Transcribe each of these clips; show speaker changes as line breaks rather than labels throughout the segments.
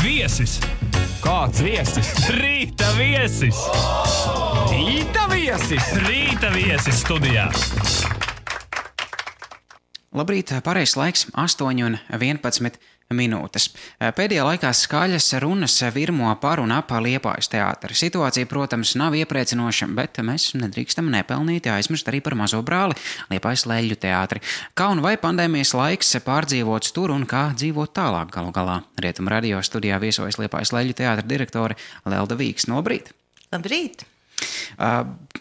Viesis! Kāds viesis? Rīta viesis! Rīta viesis! Rīta viesis studijā!
Labrīt, pareizs laiks 8:11 minūtes. Pēdējā laikā skaļas runas virmo par un ap Liepājas teātri. Situācija, protams, nav iepriecinoša, bet mēs nedrīkstam nepelnīti aizmirst arī par mazo brāli Liepājas Leļļu teātri. Kā un vai pandēmijas laiks pārdzīvots tur un kā dzīvot tālāk galu galā? Rietumu radio studijā viesojas Liepājas Leļļu teātra direktore Lelda Vīksne. Labrīt!
Labrīt!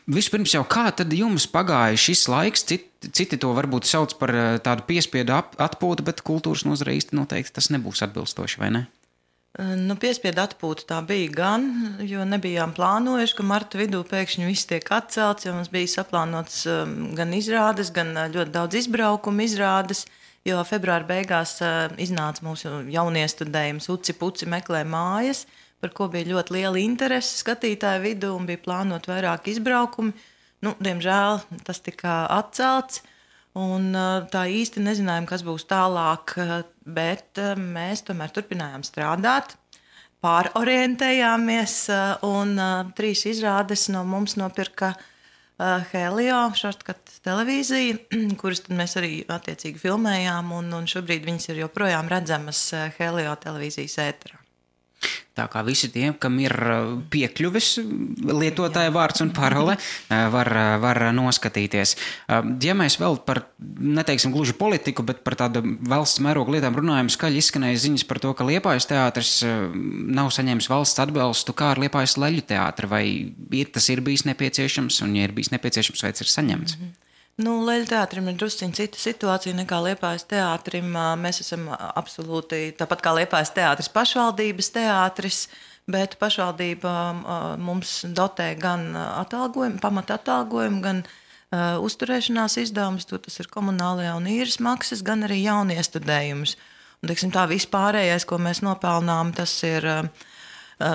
Vispirms jau kā tad jums pagāja šis laiks? Citi to varbūt sauc par tādu piespiedu atpūtu, bet kultūras nozarē īsti noteikti tas nebūs atbilstoši, vai ne?
Piespiedu atpūta tā bija gan, jo nebijām plānojuši, ka marta vidū pēkšņi viss tiek atcelts, jo mums bija saplānots gan izrādes, gan ļoti daudz izbraukumu izrādes, jo februāra beigās iznāca mūsu jauniestudējums Uci Puci meklē mājas, par ko bija ļoti liela interese skatītāju vidū un bija plānot vairāk izbraukumi. Diemžēl tas tika atcelts un tā īsti nezinājām, kas būs tālāk, bet mēs tomēr turpinājām strādāt, pārorientējāmies un 3 izrādes no mums nopirka Helio, Šortkat televīzija, kuras tad mēs arī attiecīgi filmējām un šobrīd viņas ir joprojām redzamas Helio televīzijas ēterā.
Tā kā visi tie, kam ir piekļuvis lietotāja vārds un parole, var noskatīties. Ja mēs vēl par, neteiksim gluži politiku, bet par tādu valsts mērogu lietām runājam, skaļi izskanēja ziņas par to, ka Liepājas teātris nav saņēmis valsts atbalstu, kā ar Liepājas Leļļu teātri, vai tas ir bijis nepieciešams, un ja ir bijis nepieciešams, vai tas ir saņemts?
Leļļu teātrim ir drusciņ cita situācija nekā Liepājas teātrim. Mēs esam absolūti, tāpat kā Liepājas teātris, pašvaldības teātris, bet pašvaldība mums dotē gan atalgojumu, pamata atalgojumu, gan uzturēšanās izdevumus, tas ir komunālajā un īres maksas, gan arī jauniestudējumus. Un, teiksim, tā vispārējais, ko mēs nopelnām, tas ir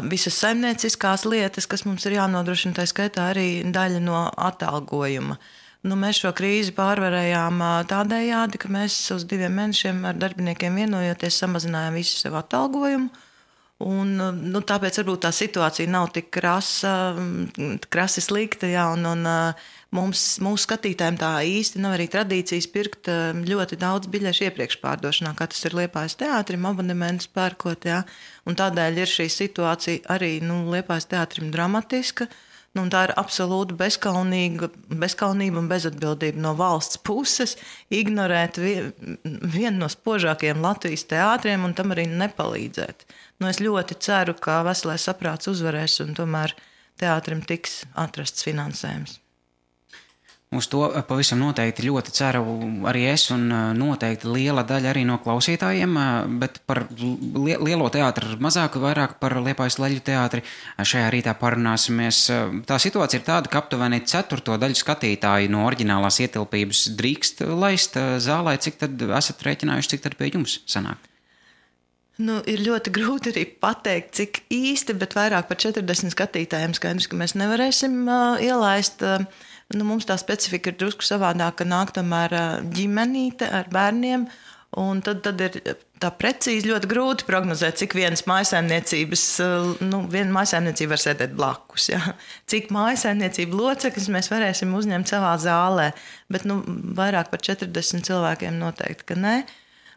visas saimnieciskās lietas, kas mums ir jānodrošina, tā skaitā arī daļa no atalgojuma. Mēs šo krīzi pārvarējām tādējādi, ka mēs uz 2 mēnešiem ar darbiniekiem vienojoties samazinājām visu savu atalgojumu. Tāpēc varbūt tā situācija nav tik krasi slikta, un mūsu skatītājiem tā īsti nav arī tradīcijas pirkt ļoti daudz biļešu iepriekš pārdošanā, kā tas ir Liepājas teātrim, abonementus pērkot, un tādēļ ir šī situācija arī Liepājas teātrim dramatiska. Tā ir absolūti bezkaunība un bezatbildība no valsts puses ignorēt vienu no spožākajiem Latvijas teātriem un tam arī nepalīdzēt. Es ļoti ceru, ka veselais saprāts uzvarēs un tomēr teātrim tiks atrasts finansējums.
Uz to pavisam noteikti ļoti ceru arī es un noteikti liela daļa arī no klausītājiem, bet par lielo teātru mazāk, vairāk par Liepājas Leļļu teātri šajā rītā parunāsimies. Tā situācija ir tāda, ka aptuveni 1/4 daļu skatītāju no oriģinālās ietilpības drīkst laist zālē. Cik tad esat rēķinājuši, cik tad pie jums sanāk?
Ir ļoti grūti arī pateikt, cik īsti, bet vairāk par 40 skatītājiem skaidrs, ka mēs nevarēsim ielaist. Mums tā specifika ir drusku savādāka, nāk tomēr ģimenīte ar bērniem, un tad ir tā precīzi ļoti grūti prognozēt, cik viena mājsaimniecība var sēdēt blakus, cik mājsaimniecība locekļus mēs varēsim uzņemt savā zālē, bet vairāk par 40 cilvēkiem noteikti, ka nē.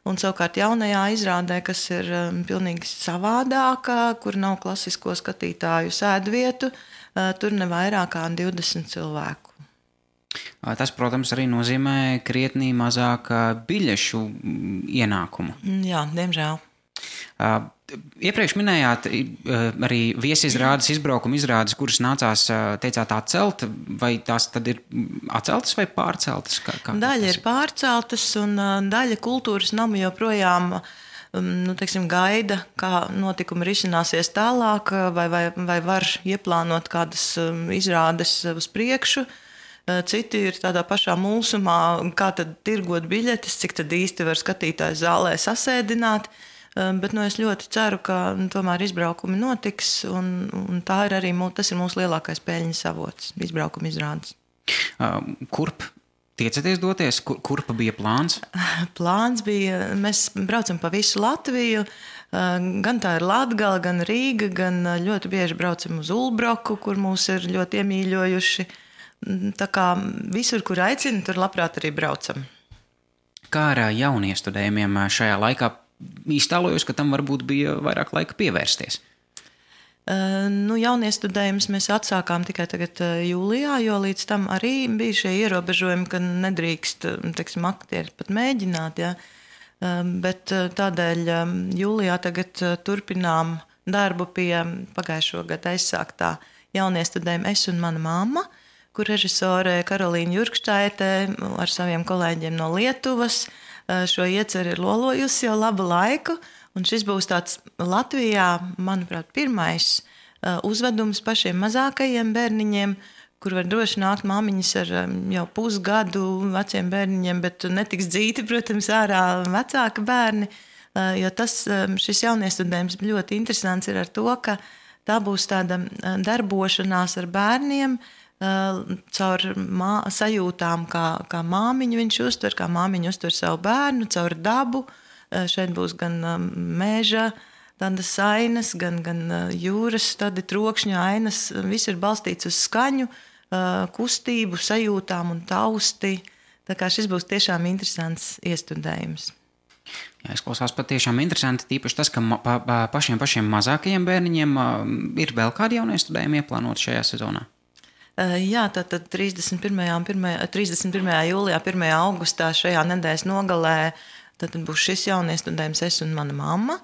Un savukārt jaunajā izrādē, kas ir pilnīgi savādākā, kur nav klasisko skatītāju sēdvietu, tur ne vairāk kā 20 cilvēku.
Tas, protams, arī nozīmē krietnī mazāk biļešu ienākumu.
Jā, diemžēl.
Iepriekš minējāt arī viesizrādes, izbraukuma izrādes, kuras nācās, teicāt, atcelt, vai tās tad ir atceltas vai pārceltas?
Daļa ir pārceltas un daļa kultūras namu joprojām gaida, kā notikumi risināsies tālāk, vai var ieplānot kādas izrādes uz priekšu. Citi ir tādā pašā mulsumā, kā tad tirgot biļetes, cik tad īsti var skatītāju zālē sasēdināt. Bet es ļoti ceru, ka tomēr izbraukumi notiks, un tā ir arī tas ir mūsu lielākais peļņas avots, izbraukuma izrādes.
Kurp tiecaties doties? Kurpa bija plāns?
Plāns bija, mēs braucam pa visu Latviju, Gan tā ir Latgala, gan Rīga, gan ļoti bieži braucam uz Ulbroku, kur mūs ir ļoti iemīļojuši. Tā kā visur, kur aicina, tur labprāt arī braucam.
Kā ar jauniestudējumiem šajā laikā? Iztēlojos, ka tam varbūt bija vairāk laika pievērsties.
Jauniestudējumus mēs atsākām tikai tagad jūlijā, jo līdz tam arī bija šie ierobežojumi, ka nedrīkst, teiksim, aktieri pat mēģināt, ja. Bet tādēļ jūlijā tagad turpinām darbu pie pagājušo gadu aizsāktā jauniestudējuma Es un mana mamma, kur režisore Karolīna Jurkštaite ar saviem kolēģiem no Lietuvas šo ieceri ir lolojusi jau labu laiku. Un šis būs tāds Latvijā, manuprāt, pirmais uzvedums pašiem mazākajiem bērniņiem, kur var droši nākt māmiņas ar jau pusgadu veciem bērniņiem, bet netiks dzīti, protams, ārā vecāka bērni. Jo šis jauniestudējums ļoti interesants ir ar to, ka tā būs tāda darbošanās ar bērniem caur sajūtām, kā māmiņu viņš uztver, kā māmiņu uztver savu bērnu, caur dabu. Šeit būs gan meža, tādas ainas, gan jūras, tādi trokšņa ainas. Viss ir balstīts uz skaņu, kustību, sajūtām un tausti. Tā kā šis būs tiešām interesants iestudējums.
Jā, izklausās patiešām interesanti, tīpaši tas, ka pašiem mazākajiem bērniņiem ir vēl kādi jauniestudējumi ieplānot šajā sezonā.
Jā, tātad 31. jūlijā, 1. augustā šajā nedēļas nogalē tad būs šis jauniestudējums Es un mana mamma.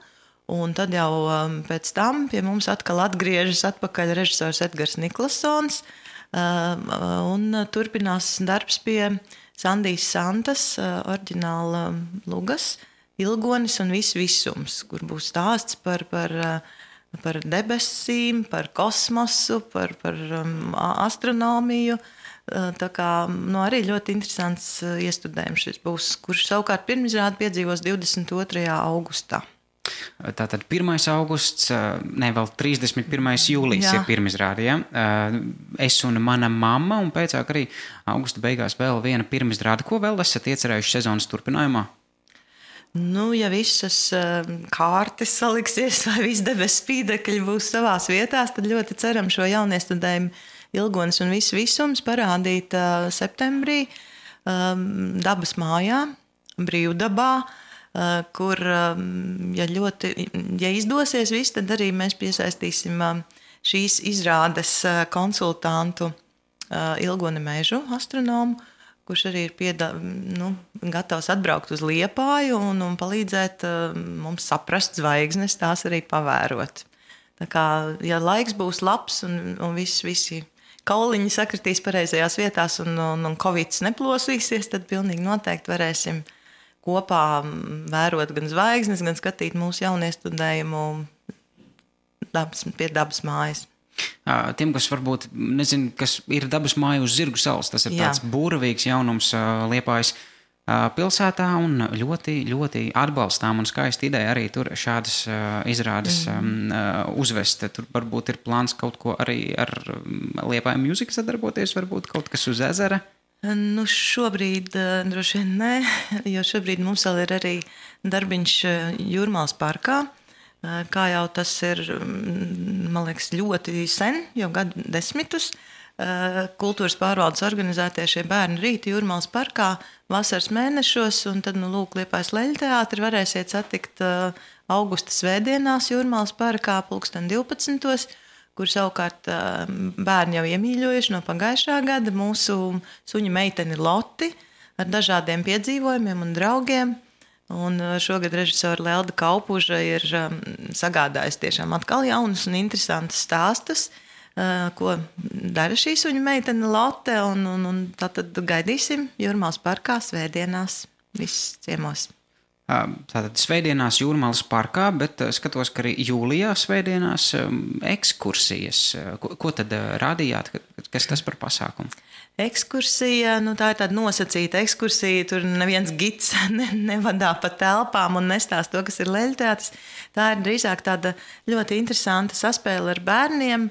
Un tad jau pēc tam pie mums atkal atgriežas atpakaļ režisors Edgars Niklasons un turpinās darbs pie Sandijas Santas oriģināla lugas Ilgonis un visums, kur būs stāsts par debesīm, par kosmosu, par astronomiju. Tā kā arī ļoti interesants iestudējums šis būs, kurš savukārt pirmizrādi piedzīvos 22. augustā.
Tātad 1. augusts, vēl 31. jūlijas ir pirmizrāde, ja? Es un mana mamma, un pēcāk arī augusta beigās vēl viena pirmizrāde. Ko vēl esat iecerējuši sezonas turpinājumā?
Ja visas kārtas saliksies vai viss debesu spīdekļi būs savās vietās, tad ļoti ceram šo jauniestudējumu Ilgonis un visums parādīt septembrī Dabas mājā, Brīvdabā, kur, ja izdosies viss, tad arī mēs piesaistīsim šīs izrādes konsultantu Ilgoni Mežu, astronomu, kurš arī ir gatavs atbraukt uz Liepāju un palīdzēt mums saprast zvaigznes, tās arī pavērot. Tā kā, ja laiks būs labs un visi kauliņi sakritīs pareizajās vietās un Covids neplosīsies, tad pilnīgi noteikti varēsim kopā vērot gan zvaigznes, gan skatīt mūsu jauniestudējumu pie Dabas mājas.
Tiem, kas varbūt nezinu, kas ir Dabas māja uz Zirgu salas, tas ir tāds būravīgs jaunums Liepājas pilsētā un ļoti, ļoti atbalstām un skaista ideja arī tur šādas izrādes uzvest. Tur varbūt ir plāns kaut ko arī ar Liepāju mūziku sadarboties, varbūt kaut kas uz ezera?
Šobrīd droši vien nē, jo šobrīd mums vēl ir arī darbiņš Jūrmālas parkā. Kā jau tas ir, man liekas, ļoti sen, jau gadu desmitus, kultūras pārvaldes organizētie šie bērnu rīti Jūrmālas parkā vasaras mēnešos, un tad, Liepājas Leļteātri varēsiet satikt augusta svētdienās Jūrmālas parkā 12. kur savukārt bērni jau iemīļojuši no pagājušā gada mūsu suņu meiteni Loti ar dažādiem piedzīvojumiem un draugiem. Un šogad režisora Lelda Kaupuža ir sagādājusi tiešām atkal jaunus un interesantus stāstus, ko dara šī suņu meitene Lotte, un tātad gaidīsim Jūrmālas parkā svētdienās visus ciemos.
Tātad svētdienās Jūrmālas parkā, bet skatos, ka arī jūlijā svētdienās ekskursijas. Ko tad rādījāt? Kas tas par pasākumu?
Ekskursija, tā ir tāda nosacīta ekskursija, tur neviens gids nevadā pa telpām un nestāst to, kas ir Leļteātris. Tā ir drīzāk tāda ļoti interesanta saspēle ar bērniem,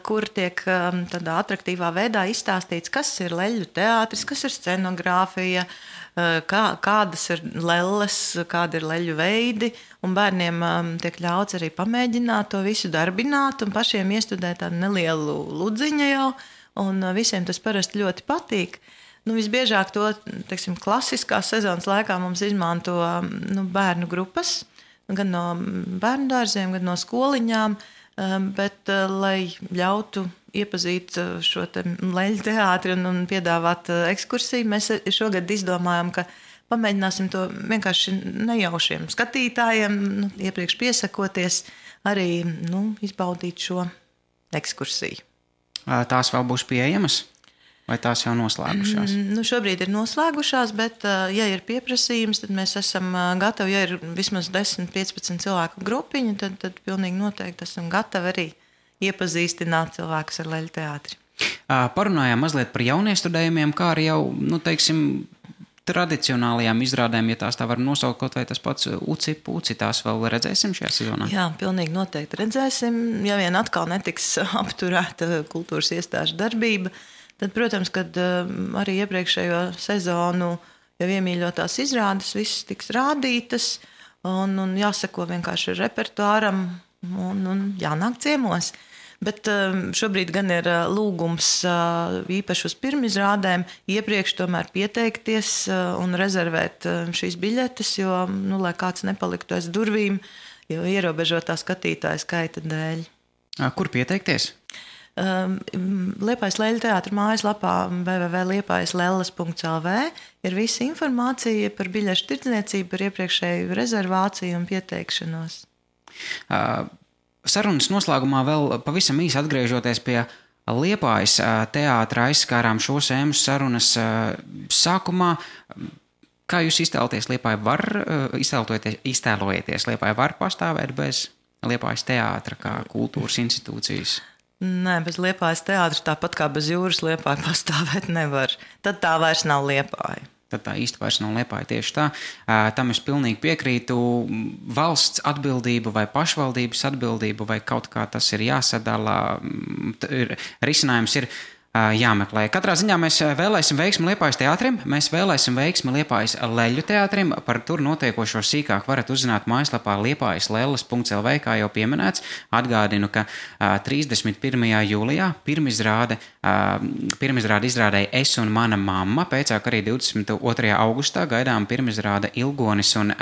kur tiek tādā atraktīvā veidā izstāstīts, kas ir leļu teātris, kas ir scenogrāfija, kādas ir lelles, kādi ir leļu veidi, un bērniem tiek ļauts arī pamēģināt to visu darbināt un pašiem iestudēt tādu nelielu ludziņu jau, un visiem tas parasti ļoti patīk. Visbiežāk to, teiksim, klasiskās sezonas laikā mums izmanto bērnu grupas, gan no bērnu dārziem, gan no skoliņām, bet, lai ļautu iepazīt šo leļu teātri un piedāvāt ekskursiju, mēs šogad izdomājam, ka pamēģināsim to vienkārši nejaušiem skatītājiem, iepriekš piesakoties, arī izbaudīt šo ekskursiju.
Tās vēl būs pieejamas? Vai tās jau noslēgušās?
Šobrīd ir noslēgušās, bet, ja ir pieprasījums, tad mēs esam gatavi, ja ir vismaz 10-15 cilvēku grupiņu, tad pilnīgi noteikti esam gatavi arī iepazīstināt cilvēkus ar leļu teātri.
Parunājām mazliet par jauniestudējumiem, kā arī jau, tradicionālajām izrādēm, ja tās tā var nosaukt, kaut vai tas pats Uci-Puci, tās vēl redzēsim šajā sezonā?
Jā, pilnīgi noteikti redzēsim. Ja vien atkal netiks apturēta kultūras iestāžu darbība, tad, protams, kad arī iepriekšējo sezonu jau iemīļotās izrādes visas tiks rādītas un jāseko vienkārši repertuāram un jānāk ciemos. Bet šobrīd gan ir lūgums īpaši uz pirmizrādēm iepriekš tomēr pieteikties un rezervēt šīs biļetes, jo, lai kāds nepaliktu aiz durvīm, jo ierobežotā skatītāja skaita dēļ.
Kur pieteikties?
Liepājas leļu teātra mājaslapā www.liepājaslelles.lv ir visa informācija par biļešu tirdzniecību, par iepriekšēju rezervāciju un pieteikšanos.
Sarunas noslēgumā vēl pavisam īsi atgriežoties pie Liepājas teātra, aizskārām šo sēmu sarunas sākumā. Kā jūs iztēloties Liepāju Liepāju var pastāvēt bez Liepājas teātra kā kultūras institūcijas?
Nē, bez Liepājas teātra, tāpat kā bez jūras Liepāja pastāvēt nevar. Tad tā vairs nav Liepāja.
Tad tā īsti vairs nav Liepāja, tieši tā. Tam es pilnīgi piekrītu. Valsts atbildību vai pašvaldības atbildību vai kaut kā tas ir jāsadala. Risinājums ir jāmeklē. Katrā ziņā mēs vēlēsim veiksmi Liepājas teātrim, mēs vēlēsim veiksmi Liepājas leļu teātrim. Par tur notiekošo sīkāk varat uzzināt mājaslapā liepājaslelles.lv, kā jau pieminēts. Atgādinu, ka 31. jūlijā pirmizrāde izrādēja Es un mana mamma, pēcāk arī 22. augustā gaidām pirmizrāde Ilgonis un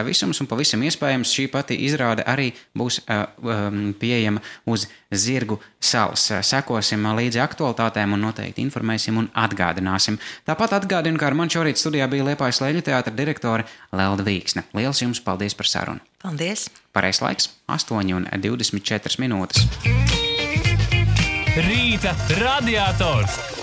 visums, un pavisam iespējams šī pati izrāde arī būs pieejama uz Zirgu salas. Sekosim līdzi aktualitātēm un noteikti informēsim un atgādināsim. Tāpat atgādinu, ka ar mani šorīt studijā bija Liepājas leļu teātra direktore Lelda Vīksne. Liels jums paldies par sarunu.
Paldies.
Pareizs laiks 8:24.
Rīta radiators.